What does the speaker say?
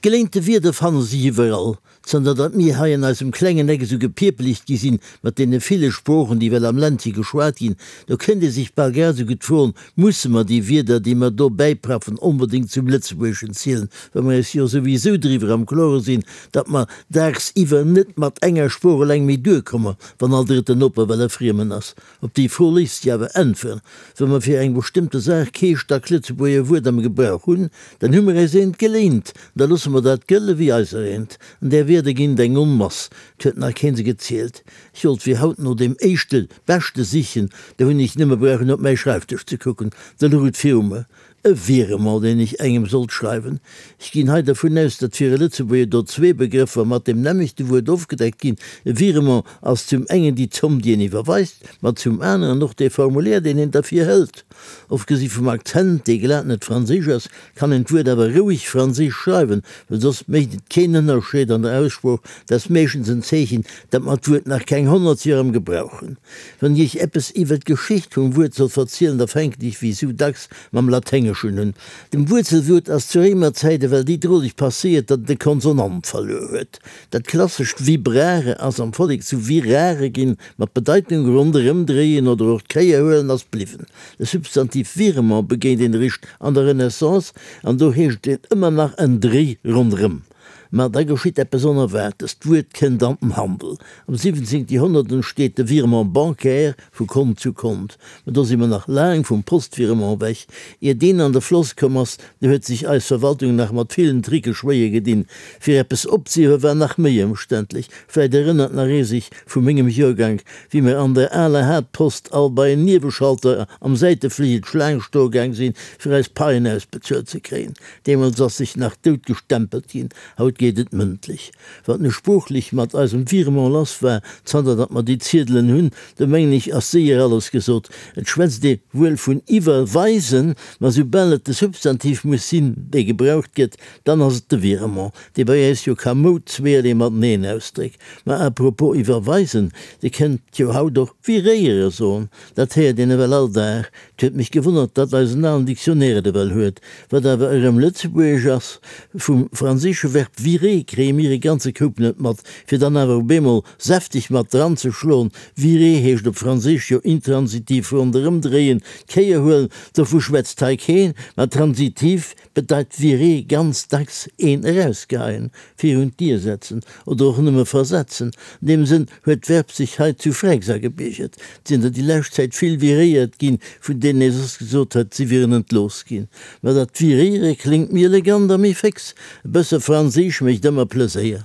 Geléinte Wierder fanne sech iwwerall. Zanter datt mir hei an eisem klengen Eck esou gepierpelegt gi sinn mat deene ville Sproochen, déi well am Ländche geschwat ginn, do kënnt ee sech bal grad esou gutt froen, Musse mer déi Wierder, déi mer do bäipraffen, onbedéngt zum Lëtzebuergeschen zielen, wa mer eis jo souwisou driwwer am Klore sinn, datt mer daagsiwwer net mat enger Sprooch eleng méi duerkomme, wann all drëtten Noper well e Friemen ass? Op déi Fro léisst sech awer äntweren, Wa mer fir eng bestëmmte Saach kee Stack-Lëtzebuerger Wuert am Gebrauch hunn, dann hu mer äis eent geléint, an da loosse mer dat gëlle wéi eiser eent. An där Wierder ginn et eng Onmass, 't huet nach keen se gezielt. Ech wollt fir haut no deem éischte beschte sichen, do hunn ech nëmme brauchen op mäi Schreifdësch ze kucken, da louch et viru mer. E Virement, deen ech engem sollt schreiwen. Ech ginn hei dervun aus, datt fir e Lëtzebuerger do zwee Begrëffer mat deem nämmlechte Wuert ofgedeckt ginn. E Virement ass zum engen déi Zomm, déi een iwwerweist, ma zum aneren och dee Formulaire, deen een derfir hëlt. Ofgesi vum Akzent, dee glat net franséisch ass, kann een d'Wuert awer roueg franséisch schreiwen, well soss mécht et keen Ënnerscheed an der Aussprooch. Dat ass meeschtens en Zeechen, datt mer d'Wuert nach keng 100 Joer am Gebrauch hunn. Wann ech iech eppes iwwer d'Geschicht vum Wuert soll verzielen, da fänken ech wéi sou dacks mam Laténgeschen un. Dem Wuerzelwuert ass zu Réimerzäit ewell déi droleg passéiert, datt et e Konsonant verluer huet. Dat klassescht vibrare ass am Vollek zu virare ginn, ma d'Bedeitung ronderëmdréien oder och d'Kéier huelen ass bliwwen. De Substantiv virement begéint een eréischt an der Renaissance, an do heescht et ëmmer nach en Dréi ronderëm. Ma da geschitt eppes Onerwaartes, d'Wuert kënnt an den Handel. Am 17. Joerhonnert entsteet de Virement bancaire vu Kont zu Kont. Ma do si mer nach laang vum Postvirement ewech. Ier deen an de Floss komm ass, do huet sech eis Verwaltung nach mat villen Tricke schwéier gedinn. Fir eppes opzehiewe war nach méi ëmständlech. Vläit erënnert nach ee sech vu mengem Joergank, wéi mer an der aler Haaptpost all bei en Nieweschalter am Säitefligel d'Schlaang stoe gaang sinn, fir eis Paien ausbezuelt ze kréien. Deemools ass sech nach dout gestempelt ginn, haut geet et mëndlech. Wat nu sproochlech mat eisem Virement lass war, zanter datt mer déi Ziedelen hunn, do mengen ech ass séier alles gesot. Et schwätzt ee wuel vun iwwerweisen, ma soubal et de Substantiv muss sinn, dee gebraucht gëtt, dann ass et de Virement, dee bei äis jo kamoud zweerlee mateneen ausdréckt. Ma à propos iwwerweisen, Dir kënnt jo haut och viréiere soen, dat héiert een ewell all Dag. 't huet mech gewonnert, datt eisen alen Dictionnaire et ewell huet, wat awer erëm lëtzebuergesch ass. Vum franséische Verb virer kréie mir e ganze Koup net mat, fir dann awer op eemol säfteg mat dran ze schloen. Virer heescht op Franséisch jo intransitiv ronderëmdréien, d'Kéier huelen, dovu schwätzt hei keen, ma transitiv bedeit virer ganz dacks een erausgeheien, virun d'Dier setzen oder och nëmme versetzen. An deem Sënn huet d'Verb sech hei zu Fränks agebiergert. Et sinn der déi lescht Zäit vill viréiert ginn, vun deenen ee soss gesot huet, si wieren entlooss ginn. Ma dat viréiere kléngt méi elegant a méi féx. E bësse Franséisch mécht ëmmer Pleséier.